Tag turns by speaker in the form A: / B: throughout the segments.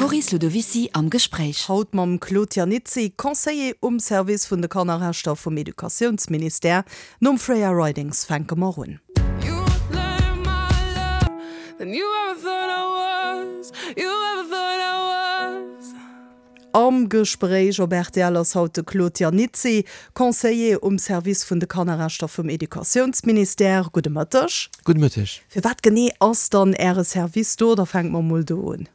A: D'Maryse Ludovicy am Gespréich.
B: Haut mam Claude Iannizzi, Conseiller um Service vun de Kannerrechter vum Educatiounsministère. Nom Freya Ridings fänke mer un. Am Gespréich op rtl ass haut de Claude Iannizzi, Conseiller um Service vun de Kannerrechter vum Educatiounsministère. Gudde Mëtteg.
C: Gudde Mëtteg.
B: Fir wat genee ass dann Äre Service do? Da fänke mer mol do un.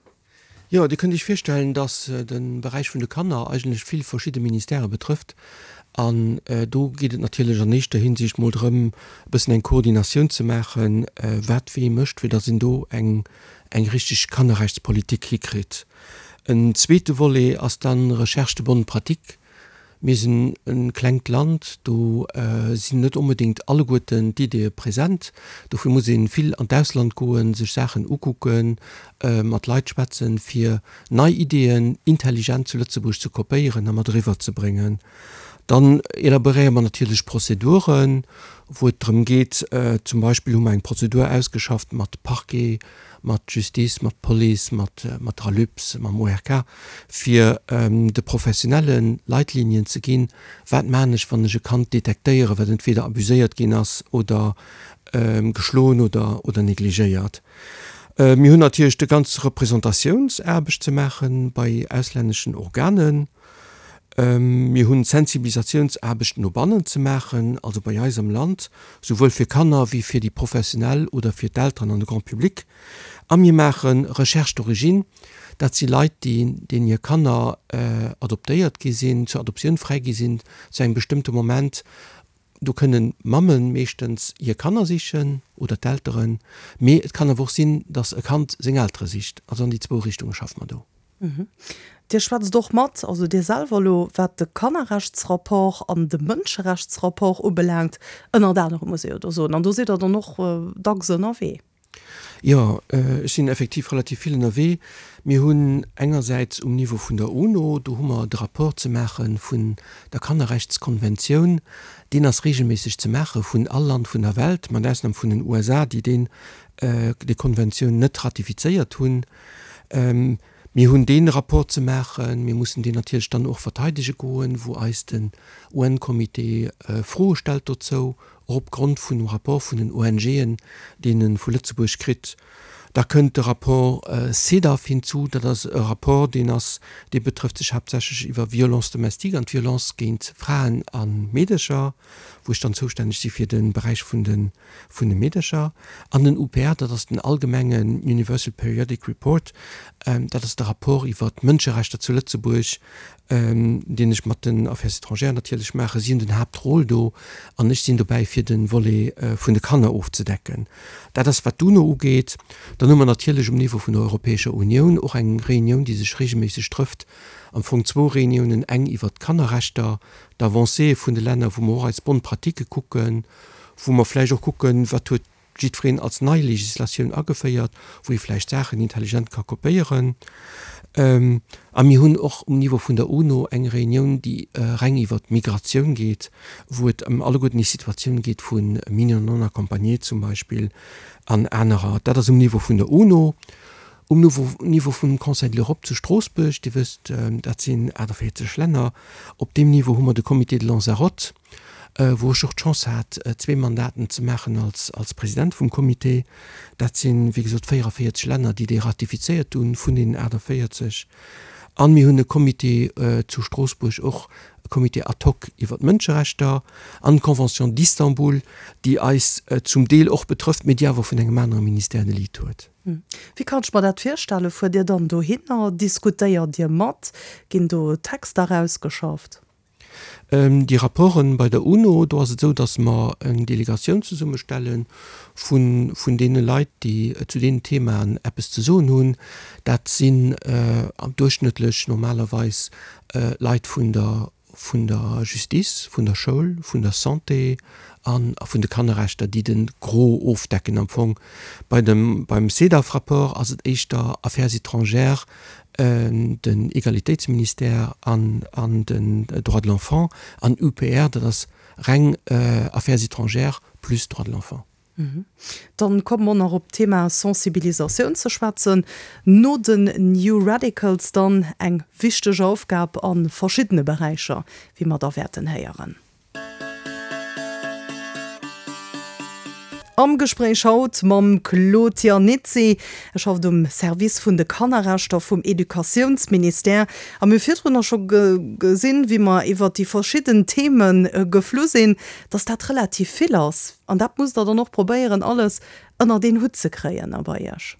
C: Jo, Dir kënnt Iech virstellen, dass de Beräich vun de Kanner eigentlech vill verschidde Ministèrë betrëfft. An do geet et natierlech an éischter Hinsicht mol drëm, e bëssen eng Koordinatioun ze maachen, wat wee mécht, fir dass een do eng richteg Kannerrechtspolitik hikritt. En zweete Volet ass dann Recherche de bonnes pratiques. Mir sinn e klengt Land, do sinn net onbedéngt alleguerten d'Ideeë present. Dofir muss ee vill an d'Ausland goen, sech Saachen ukucken, mat Leit schwätzen, fir nei Ideeën intelligent zu Lëtzebuerg ze kopéieren a mat eriwwer ze bréngen. Dann elaboréiere mer natierlech Prozeduren, wou et drëm geet, zum Beispill hu mer eng Prozedur ausgeschafft mat Parquet, mat Justice, mat Police, mat der ALUPS, mam ORK, fir de Professionelle Leitlinien ze ginn, wat maachen ech, wann ech e Kand detektéieren, wat entweder abuséiert ginn ass oder geschloen oder oder negligéiert. Mir hunn natierlech de ganz Representatiouns-aarbecht ze maache bei auslänneschen Organen. Mir hunn Sensibilisatiounsaarbecht no bannen ze maachen, also bei eis am Land, souwuel fir Kanner wéi fir déi Professionell oder fir d'Elteren an de Grand public. A mir maache Recherche d'origine, dat si Leit, déi, deenen hir Kanner adoptéiert gi sinn, zur Adoptioun fräi gi sinn zu engem bestëmmte Moment. Do kënnen d'Mamme meeschtens hir Kanner sichen oder d'Elteren, mee et kann awer och sinn, datt e Kand seng Eltere sicht. Also an déi zwou Richtunge schaffe mer do.
B: Dir schwätzt och mat, also Dir selwer elo, wat de Kannerrechtsrapport an de Mënscherechtsrapport ubelaangt, ënnert anerem, muss ee jo do soen. An do sidd Der dann och dacks ënnerwee.
C: Jo, ech sinn effektiv relativ vill ënnerwee. Mir hunn engersäits um Niveau vun der UNO, do hu mer de Rapport ze maache vun der Kannerrechtskonventioun. Deen ass regelméisseg ze maache vun all Land vun der Welt, mat Ausnam vun den USA, déi deen, déi Konventioun net ratifizéiert hunn. Mir hunn dee Rapport ze maachen. Mir mussen deen natierlech dann och verteidege goen, wou eis den UN-Comité Froe stellt dozou, och opgrond vun dem Rapport vun den ONGen, deen e vu Lëtzebuerg kritt. Da kënnt de Rapport CEDAW hinzu. Dat ass e Rapport, deen ass, dee betrëfft sech haaptsächlech iwwer Violence domestique an d'Violence géint Fraen a Meedercher, wou ech dann zoustänneg si fir de Beräich vun de vun de Meedercher, an den UPR, dat ass den allgemengen Universal Periodic Report, dat ass de Rapport iwwer d'Mënscherechter zu Lëtzebuerg, deen ech mat den Affaires étrangères natierlech maachen. Si hunn den Haaptrôle do an ech sinn dobäi fir de Volet vun de Kanner ofzedecken. Dat ass wat d'UNO ugeet. Dann hu mer natierlech um Niveau vun der Europäescher Unioun och eng Reunioun, déi sech regelméisseg trëfft, am Fong zwou Reuniounen, eng iwwert d'Kannerrechter, d'Avancéë vun de Länner, wou mer och eis Bonnes pratiques kucken, wou mer vläicht och kucken, wat huet jiddwereen als nei Législatioun ageféiert, wou ee vläicht Saachen intelligent ka kopéieren. A mir hunn och um Niveau vun der UNO eng Reunioun, déi reng iwwert d'Migratioun geet, wou et ëm alleguerten déi Situatioun geet vu Mineurs non accompagnés zum Beispill an anerer. Dat ass um Niveau vun der UNO. Um Niveau vum Conseil de l'Europe zu Stroossbuerg, Dir wësst, dat sinn 48 Länner, op deem Niveau hu mer de Comité de Lanzarote, wou ech och d'Chance hat, zwee Mandaten ze maachen als als President vum Comité. Dat sinn, wéi gesot, 44 Länner, déi dee ratifizéiert hunn, vun deenen 48. An mir hunn e Comité zu Stroossbuerg och, e Comité ad hoc iwwer d'Mënscherechter an d'Convention d'Istanbul, déi eis zum Deel och betrëfft, mee déi awer vun engem anere Ministère de Lead huet.
B: Wéi kann ech mer dat virstellen? Fuert Dir dann dohinner? Diskutéiert Dir mat? Ginn do Texter erausgeschafft?
C: Déi Rapporten bei der UNO, do ass et esou, datt mer eng Delegatioun zesummestelle vun vun deene Leit, déi zu deenen Themaen eppes ze soen hunn. Dat sinn duerchschnëttlech normalerweis Leit vun der vun der Justice, vun der Schoul, vun der Santé a vun de Kannerrechter, déi de Gros ofdecken am Fong. Bei dem beim CEDAW-Rapport ass et éischter Affaires étrangères, den Egalitéitsministère an an den Droits de l'enfant an UPR, dat ass reng Affaires étrangères plus Droits de l'enfant.
B: Dann komme mer nach op d'Thema Sensibilisatioun ze schwätzen. No den New Radicals dann eng wichteg Aufgab a verschiddene Beräicher, wéi mer da wäerten héieren. Am Gespréich haut mam Claude Iannizzi. E schafft um Service vun de Kannerrechter vum Educatiounsministère. A mir hu virdrunner scho gesinn, wéi mer iwwert déi verschidden Theme geflu sinn, dass dat relativ vill ass. An dat musst Der dann och probéieren, alles ënnert een Hutt ze kréien a bei Iech.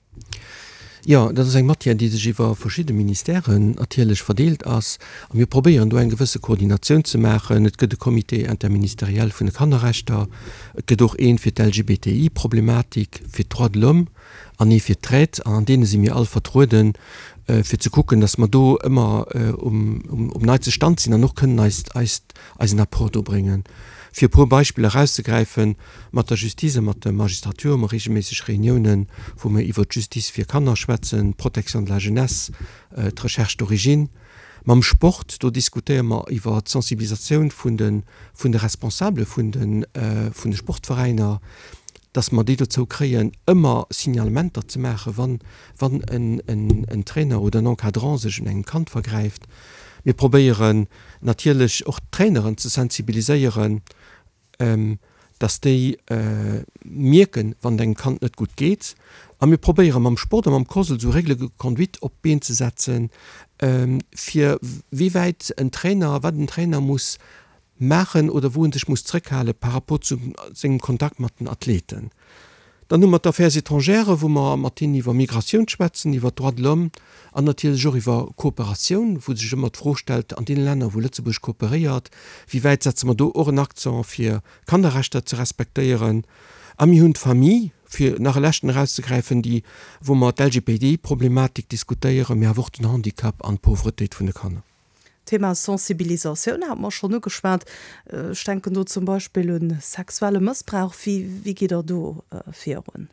C: Jo, dat ass eng Matière, déi sech iwwer verschidde Ministèren natierlech verdeelt ass. A mir probéieren do eng gewësse Koordinatioun ze maachen. Et gëtt e Comité interministériel vun de Kannerrechter, et gëtt och een fir d'LGBTI-Problematik, fir d'Droits de l'homme an ee fir d'Traite. An an deene si mir all vertrueden, fir ze kucken, datt mer do ëmmer um neitste Stand sinn an och kënnen eist, eist, eisen Apport do bréngen. Fir e puer Beispiller erauszegräifen, Mat der Justice a mat der Magistratur hu mer reegelméisseg Reuniounen, wou mer iwwert d'Justice fir Kanner schwätzen, d'Protection de la jeunesse, d'Recherche d'origine. Mam Sport, do diskutéiere mer iwwer d'Sensibilisatioun vun de vun de Responsabele vun de vun de Sportveräiner, dass mer déi dozou kréien, ëmmer Signalementer ze maachen, wann wann en en Trainer oder en Encadrant sech un engem Kand vergräift. Mir probéieren natierlech och d'Traineren ze sensibiliséieren, dass déi mierken, wann et engem Kand net gutt geet. A mir probéiere mam Sport a mam COSL esou Règles de conduite op d'Been ze setzen, fir wéi wäit en Trainer, wat en Trainer muss maachen oder wou en sech muss zrëckhale par rapport zu sengem Kontakt mat den Athleten. Dann hu mer d'Affaires étrangères, wou mer mat hinnen iwwer Migratioun schwätzen, iwwer d'Droits de l'homme an natierlech och iwwer Kooperatioun, wou sech ëmmer d'Fro stellt, an deene Länner, wou Lëtzebuerg kooperéiert, wéi wäit setze mer do och en Accent, fir Kannerrechter ze respektéieren. A mir hunn d'Famille, fir nach e leschten erauszegräifen, déi, wou mer d'LGBTI-Problematik diskutéieren, mee awer och den Handicap an d'Pauvretéit vun de Kanner.
B: D'Thema Sensibilisatioun hate mer schonn ugeschwat. Ech denken do zum Beispill un sexuelle Mëssbrauch. Wéi gitt Der do virun?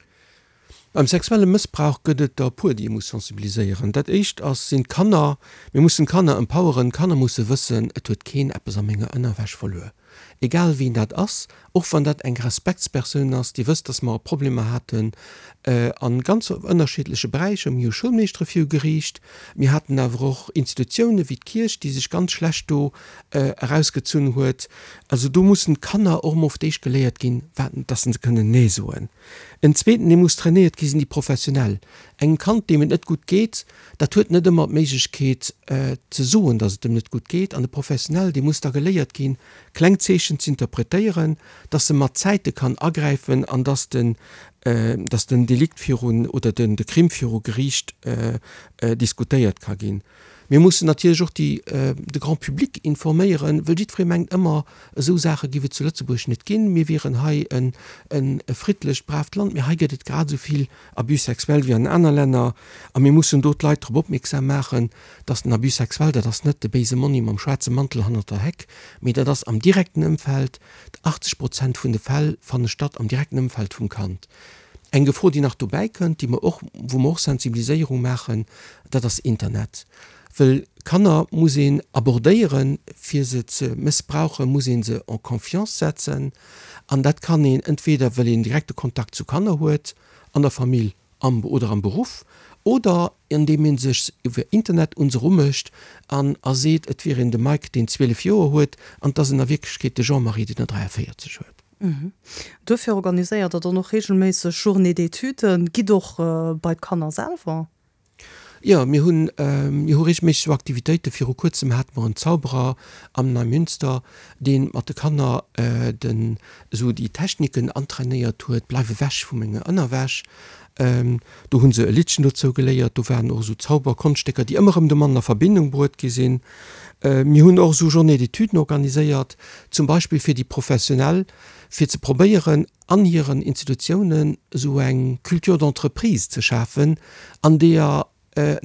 C: Beim sexuelle Mëssbrauch gëtt et der e puer, déi ee muss sensibiliséieren. Dat éischt ass, sinn d'Kanner. Mir mussen d'Kanner empoweren. D'Kanner musse wëssen, et huet keen eppes a menger Ënnerwäsch verluer. Egal wien dat ass, och wann dat eng Respektspersoun ass, Dir wësst, dass mer Problemer haten a ganz ënnerschiddleche Beräicher. Mir hu Schoulmeeschtere viru Geriicht, mir haten awer och Institutiounen wéi d'Kierch, déi sech ganz schlecht do erausgezunn huet. Also do mussen d'Kanner och emol fir d'éischt geléiert ginn, wat, dass se kënnen Nee soen. En zweeten, dee muss trainéiert gi sinn déi Professionell. Engem Kand, deem et net gutt geet, dat huet net ëmmer d'Méiglechkeet ze soen, dass et em net gutt geet. An de Professionell, dee muss da geléiert ginn, kleng Zeechen z'interpretéieren, dass e mat Zäite kann agräifen an dass den, dass den Delikt virun oder den de Crime viru Geriicht diskutéiert ka ginn. Mir mussen natierlech och déi, de Grand public informéieren, wëll jiddweree mengt ëmmer, esou Saache giff et zu Lëtzebuerg net ginn, mir wieren hei en e friddlecht, braaft Land. Mee hei gëtt et grad esou vill Abus sexuel wéi an aner Länner a mir mussen do d'Leit drop opmierksam maachen, dass den Abus sexuel, dat ass net de béise Monni mam schwaarze Mantel hannert der Heck, mee dat ass am direkten Ëmfeld. 80 Prozent vun de Fäll fanne statt am direkten Ëmfeld vum Kand. Eng Gefor, déi nach dobäi kënnt, déi mer och, wou mer och Sensibiliséierung maachen, dat ass Internet. Well Kanner muss een abordéieren, fir se ze mëssbrauchen, muss ee se en confiance setzen. An dat kann een entweder, well een direkte Kontakt zu Kanner huet, an der Famill am oder am Beruff, oder andeem ee sech iwwer Internet un se erumécht an a seet, et wier een de Mike, deen 12 Joer huet, an et ass en a Wierklechkeet de Jean-Marie, deen der 43 huet.
B: Duerfir organiséiert Der dann och reegelméisseg Journées d'études, gitt och bei d'Kanner selwer?
C: Jo, mir hunn, mir hu reegelméisseg esou Aktivitéiten. Viru kuerzem hate mer en Zauberer am Neimünster, dee mat de Kanner den, esou déi Techniken antrainéiert huet, Bleif ewech vu menger Ënnerwäsch. Do hu se e Liddchen dozou geléiert. Do waren och esou Zauberkonschtécker, déi ëmmer erëm domatten a Verbindung bruet gi sinn. Mir hunn och esou Journées d'études organiséiert, zum Beispill fir déi Professionell, fir ze probéieren, an hiren Institutiounen esou eng Culture d'entreprise ze schafen, an deeër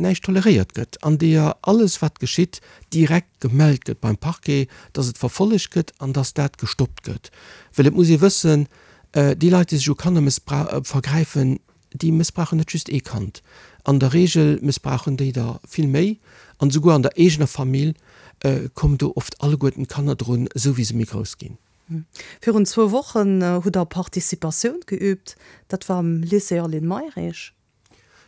C: näischt toleréiert gëtt, an deeër alles wat geschitt direkt gemellt gëtt beim Parquet, dass et verfollegt gëtt an dass dat gestoppt gëtt. Well et muss ee wëssen, déi Leit, déi sech u Kanner vergräifen, déi mëssbrauchen net just ee Kand. An der Regel mëssbrauchen déi der vill méi an esouguer an der eegener Famill kommen do oft alleguerten d'Kanner drun, esou wéi se méi grouss ginn.
B: Virun zwou Wochen hutt Der Participatioun geüübt. Dat war am Lycée Aline Mayrisch.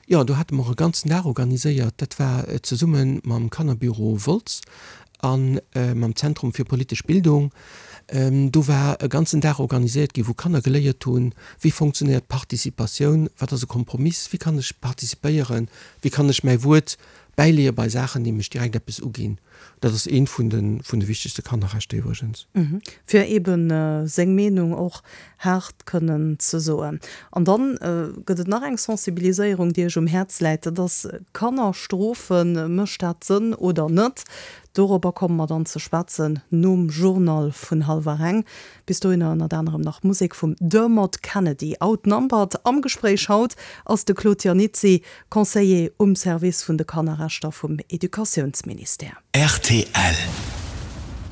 C: Jo, do hate mer e ganzen Dag organiséiert. Dat war zesumme mam Kannerbüro Wolz a mam Zentrum fir politesch Bildung. Do war e ganzen Dag organiséiert ginn, wou Kanner geléiert hunn, wéi fonctionnéiert Participatioun, wat ass e Kompromiss, wéi kann ech participéieren, wéi kann ech mäi Wuert bäileeë bei Saachen, déi mech direkt eppes uginn. Dat ass eent vun de vun de wichtegste Kannerrechter iwwregens.
B: Fir eebe seng Meenung och haart kënnen ze soen. An dann gëtt et nach eng Sensibiliséierung, déi Iech um Häerz läit, dat ass Kanner strofen. Mécht dat Sënn oder net? Dorobber komme mer dann ze schwätzen nom Journal vun hallwer eng. Bis dohinner ënnert anerem nach Musek vum Dermot Kennedy. Outnumbered am Gespréich haut ass de Claude Iannizzi, Conseiller um Service vun de Kannerrechter vum Educatiounsministère.
A: Rtl.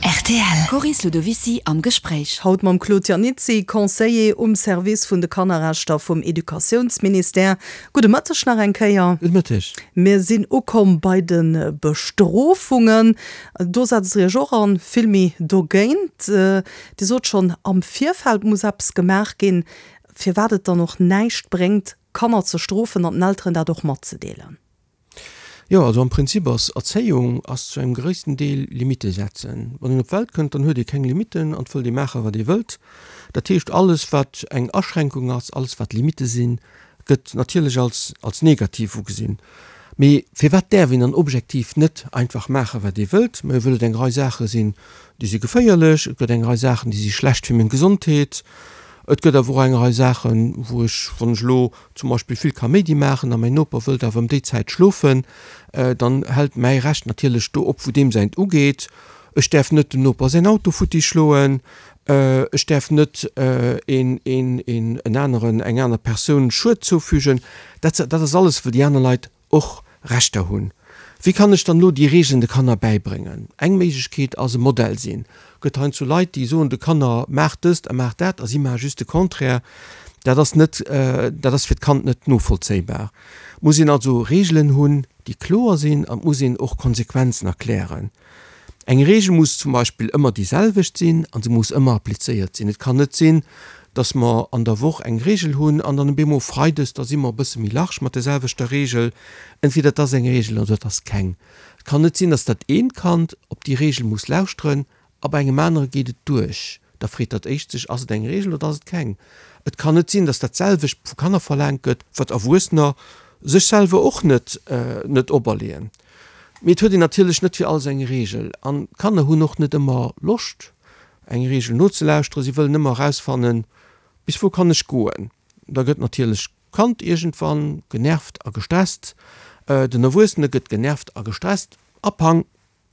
A: Rtl. Coris Ludovicy am Gespréich.
B: Haut mam Claude Iannizzi, Conseiller um Service vun de Kannerrechter vum Educatiounsministère. Gudde Mëtteg nach eng Kéier.
C: Gudde Mëtteg.
B: Mir sinn ukomm bei de Bestrofungen. Do setzt Der Iech och an, vill méi dogéint. Dir sot schonn, am Virfeld muss eppes gemaach ginn, firwat et dann och näischt bréngt, Kanner ze strofen an den Elteren dat och matzedeelen.
C: Jo, also am Prinzip ass Erzéiung ass zu engem gréissten Deel Limitte setzen. Wann een op d'Welt kënnt, dann huet ee keng Limitten an et wëllt ee maachen, wat ee wëllt. Dat heescht, alles wat eng Aschränkung ass, alles wat Limitte sinn, gëtt natierlech als als negativ ugesinn. Mee firwat däerf een dann objektiv net einfach maachen, wat ee wëllt? Majo, wëll et eng Rei Saache sinn, déi si geféierlech, et gëtt eng Rei Saachen, déi si schlecht fir meng Gesondheet, et gëtt awer och eng Rei Saachen, wou ech, wann ech elo zum Beispill vill Kaméidi maachen a mäin Noper wëllt awer ëm déi Zäit schlofen, dann hält mäi Recht natierlech do op, wou deem säint ugeet. Ech däerf net dem Noper säin Auto futti schloen, ech däerf net een, een, een, en aneren, eng aner Persoun Schued zoufügen. Dat, dat ass alles, wou déi aner Leit och Rechter hunn. Wéi kann ech dann elo déi Regeln de Kanner bäibréngen? Eng Méiglechkeet ass e Modell sinn. Gëtt heiansdo Leit, déi soen de Kanner, maacht dëst a maacht dat a si maache just de Contraire. Dat ass net, dat ass fir d'Kand net novollzéibar. Et muss een also Regeln hunn, déi kloer sinn an et muss een och Konsequenzen erklären. Eng Regel muss zum Beispill ëmmer déi selwecht sinn a se muss ëmmer applizéiert sinn. Et kann net sinn, dass mer an der Woch eng Regel hunn an dann op eemol freides, da si mer e bësse méi large mat der selwechter Regel. Entweder et ass eng Regel oder et ass keng. Et kann net sinn, dass dat eent Kand op déi Regel muss lauschteren a bei engem anere geet et duerch. Da freet dat éischt sech, Ass et eng Regel oder ass et keng? Et kann net sinn, dass dat selwecht vu Kanner verlaangt gëtt, wat Erwuessener sech selwer och net net operleeën. Mee et huet een natierlech net fir alles eng Reegel. An d'Kanner hunn och net ëmmer Loscht, eng Reegel nozelauschteren. Si wëllen ëmmer erausfannen, Bis wou kann ech goen? Da gëtt natierlech d'Kand iergendwann genervt a gestresst. Den Erwuessene gëtt genervt a gestresst a pang,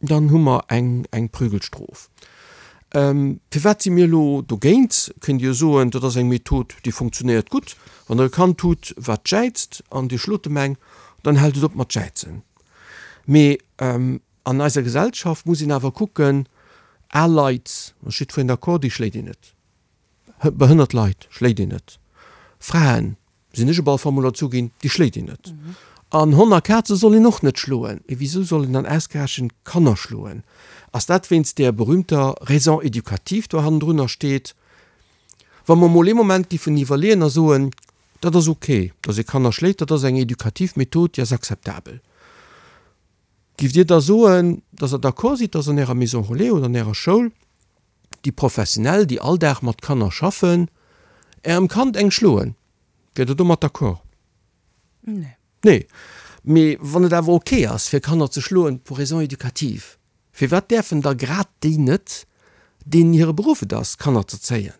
C: dann hu mer eng, eng Prügelstrof. Firwat si mir elo dogéint? Kënnt Dir soen, dat ass eng Method, déi funktionéiert gutt. Wann Der e Kand hutt, wat jäizt an Dir schlot em eng, dann hält et op mat jäizen. Mee an eiser Gesellschaft muss een awer kucken, al Leit, ass jiddwereen d'accord, déi schléit een net. Behënnert Leit schléit een net. Fraen, sinn ech op alle Fall mol erzu ginn, déi schléit een net. An Honn a Kaze soll een och net schloen. Mee wisou soll een dann ausgerechent Kanner schloen? Ass dat wéinst där berühmter Raison éducative do hannendrunner steet? Wa mer mol ee Moment giffen iwwerleeën a soen, dat ass ok, datt ee Kanner schléit, dat ass eng edukativ Method, déi ass akzeptabel. Giff Dir da soen, datt Der d'accord sidd, datt an Ärer Maison relais oder an Ärer Schoul déi Professionell, déi all Dag mat Kanner schaffen, Ärem Kand eng schloen? Wiert Der domat d'accord?
B: Nee.
C: Nee. Mee wann et awer ok ass, fir Kanner ze schloen pour raisons éducatives, firwat däerfen da grad déi net, deenen hire Beruff et ass, Kanner z'erzéien?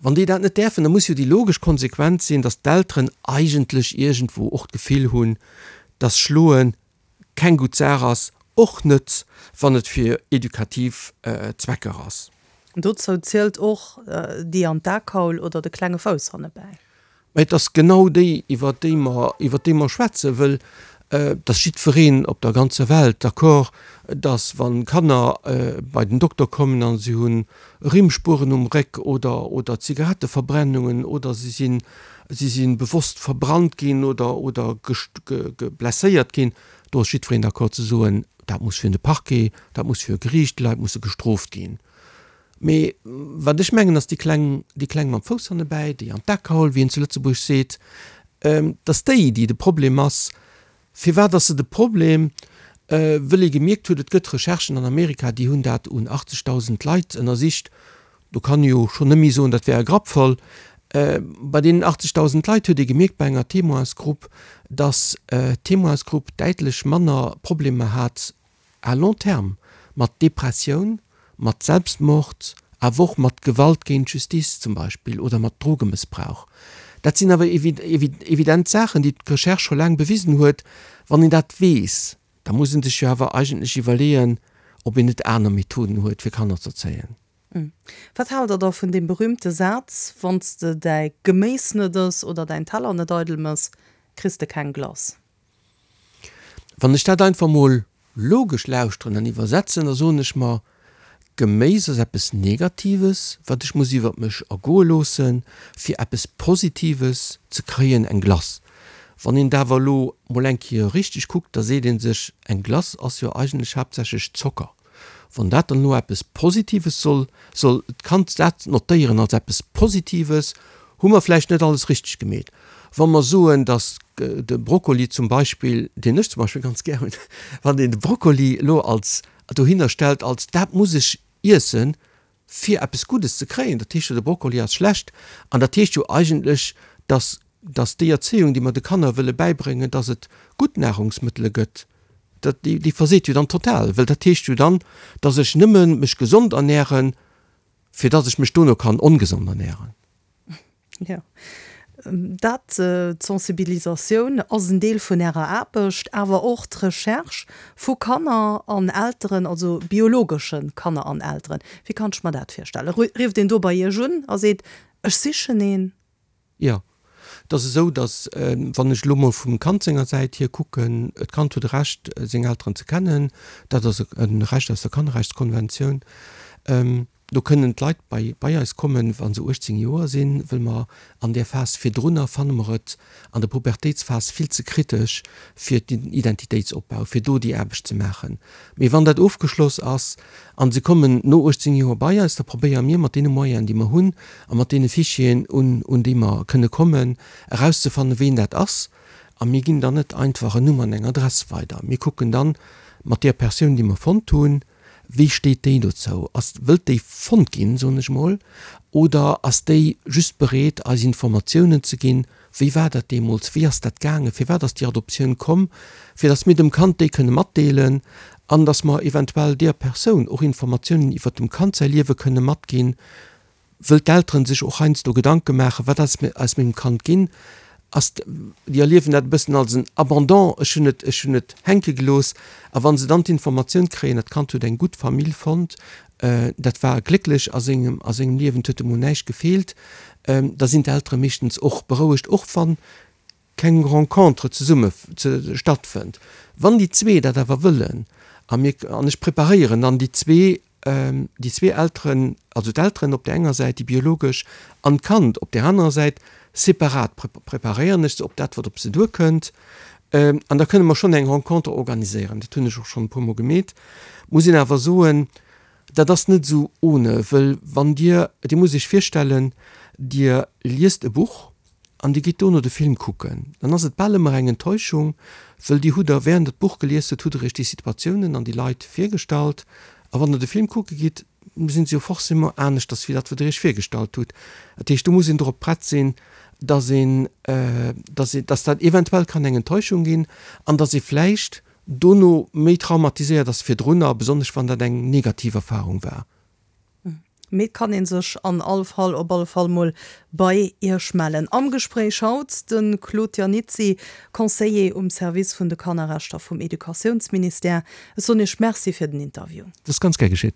C: Wann déi dat net däerfen, da muss jo déi logesch Konsequenz sinn, dass d'Elteren eigentlech iergendwou och d'Gefill hunn, dass Schloe keng gutt Saach ass, och net wann et fir edukativ Zwecker ass.
B: Dozou zielt och déi an d'Akaul oder de klenge Fouss hannebäi.
C: Mä et ass genau déi, iwwer déi mer, iwwer déi mer schwätzen, wëll et ass jiddwereen op der ganzer Welt d'accord, dass wa Kanner bei den Dokter kommen a si hu Rimmspueren um Réck oder, oder Zigaretteverbrennungen oder si sinn, si si bewosst verbrannt ginn oder, oder blesséiert ginn, do ass jiddwereen d'accord ze soen, dat muss virun de Parquet, dat muss vir e Geriicht, déi Leit musse gestrooft ginn. Mee wat ech mengen, ass déi Kleng, déi Kleng mam Fouss hannebäi, déi an d'Ak geholl, wéi een zu Lëtzebuerg seet, dass déi, déi de Problem ass. Firwat ass se de Problem? Wëll ee gemierkt huet, et gëtt Recherchen an Amerika, déi hunn dat un 80.000 Leit ënnersicht, do kann ee jo schonn net méi soen, dat wär e Grapp voll. Bei deenen 80.000 Leit huet ee gemierkt bei enger Témoinsgrupp, dass d'Témoinsgrupp däitlech manner Problemer hat à long terme mat Depressioun, mat Selbstmord, awer och mat Gewalt géint d'Justiz zum Beispill oder mat Drogemëssbrauch. Dat sinn awer evident Saachen, déi d'Recherche scho laang bewisen huet. Wann een dat weess, da muss ee sech jo awer eigentlech iwwerleeën, ob een net aner Methoden huet, fir Kanner z'erzéien.
B: Wat haalt Der da vun deem berühmte Saz, Wann s de däi Geméis net ëss oder däin Teller net eidel mëss, kriss de keng Glace?
C: Wann ech dat einfach mol logesch lauschteren an iwwersetzen, da soen ech mer, Geméis ass eppes Negatives, wat ech muss iwwert mech ergoe loossen, fir eppes Positives ze kréien, eng Glace. Wann een et awer elo mol eng Kéier richteg kuckt, da seet ee sech, eng Glace ass jo eigentlech haaptsächlech Zocker. Wann dat dann elo eppes Positives soll, soll d'Kand dat notéieren als eppes Positives, hu mer vläicht net alles richteg gemeet. Wa mer soen, datt de Brokkoli zum Beispill, deen ech zum Beispill ganz gär hunn, wann een de Brokkoli elo als dohinner stellt als dat muss ech iessen, fir eppes Guddes ze kréien, dat heescht jo, de Brokkoli ass schlecht. An dat heescht jo eigentlech, datt, datt déi Erzéiung, déi mer de Kanner wëlle bäibréngen, datt et gutt Nahrungsmëttele gëtt, dat, déi, déi verseet jo dann total, well dat heescht jo dann, datt ech nëmme mech gesond ernähren, fir datt ech mech dono kann ongesond ernähren.
B: Jo, dat, d'Sensibilisatioun ass en Deel vun Ärer Aarbecht, awer och d'Recherche vu Kanner an Elteren, also biologesche Kanner an Elteren. Wéi kann ech mer dat virstellen? Rifft een do bei Iech un a seet, ech sichen een?
C: Jo, et ass esou, datt, wann ech elo mol vum Kand senger Säit hier kucken, d'Kand huet e Recht, seng Elteren ze kennen. Dat ass e Recht aus der Kannerrechtskonventioun. Do kënnen d'Leit bei bei eis kommen, wa se 18 Joer sinn, wëll mer an där Phas virdrunner fanne mer et an der Pubertéitsphas vill ze kritesch fir den Identitéitsopbau, fir do déi Aarbecht ze maachen. Mee wann dat ofgeschloss ass a se kommen no 18 Joer bei eis, da probéiere mir mat deene Moyenen, déi mer hunn a mat deene Fichieren, un un déi mer kënne kommen, erauszefannen, ween dat ass. A mir ginn dann net einfach en Numm an eng Adress weider. Mir kucken dann mat där Persoun, déi mer fonnt hunn, Wéi steet déi dozou? Ass, wëllt déi fonnt ginn, soen ech mol, oder ass déi just bereet, eis Informatiounen ze ginn, wéi war dat deemools, wéi ass dat gaangen, firwat ass déi Adoptioun komm, fir datt mir dem Kand déi kënne matdeelen an datt mer eventuell deer Persoun och Informatiounen iwwert dem Kand säi Liewe kënne matginn, Wëll d'Elteren sech och heiansdo Gedanke maachen, wat ass aus mengem Kand ginn, ass, déi erliewen dat e bëssen als en Abandon, ech hunn et, ech hunn et hänke gelooss. A wa se dann d'informatioun kréien, dat Kand huet eng gutt Famill fonnt, dat war glécklech a sengem, a sengem Liewen, et huet emol näischt gefeelt, da sinn d'Eltere meeschtens och berouegt, och wann keng Rencontre zesumme stattfënnt. Wann déi zwee dat awer wëllen, a mir, an ech preparéieren dann déi zwee, déi zwee Elteren, also d'Elteren op där enger Säit, déi biologesch, an d'Kand op där anerer Säit, separat preparéieren ech se op dat, wat op se duerkënnt. An da kënne mer schonn eng Rencontre organiséieren. Dat hunn ech och schonn e puermol gemeet. Muss een awer soen, dat ass net esou ohne, wëll wann Dir, Dir musst Iech virstellen, Dir liest e Buch, an Dir gitt dono de Film kucken, dann ass et bal ëmmer eng Enttäuschung, wëll Dir hutt der, während Der d'Buch gelies hutt, hutt Der Iech déi Situatiounen an déi Leit virgestallt, a wann Der de Film kucke gitt, sinn se jo forcément aneschters wéi dat, wat Der Iech virgestallt hutt. Dat heescht, do muss een dorop prett sinn, dass een, dass een, dass dat eventuell kann eng Enttäuschung ginn an dass ee vläicht dono méi traumatiséiert ass virdrunner, besonnesch wann dat eng negativ Erfahrung war.
B: Mee et kann een sech an all Fall op alle Fall mol bei Iech mellen. Am Gespréich haut de Claude Iannizzi, Conseiller um Service vun de Kannerrechter vum Educatiounsministère. Ech soen Iech Merci fir den Interview.
C: Dat ass ganz gär geschitt.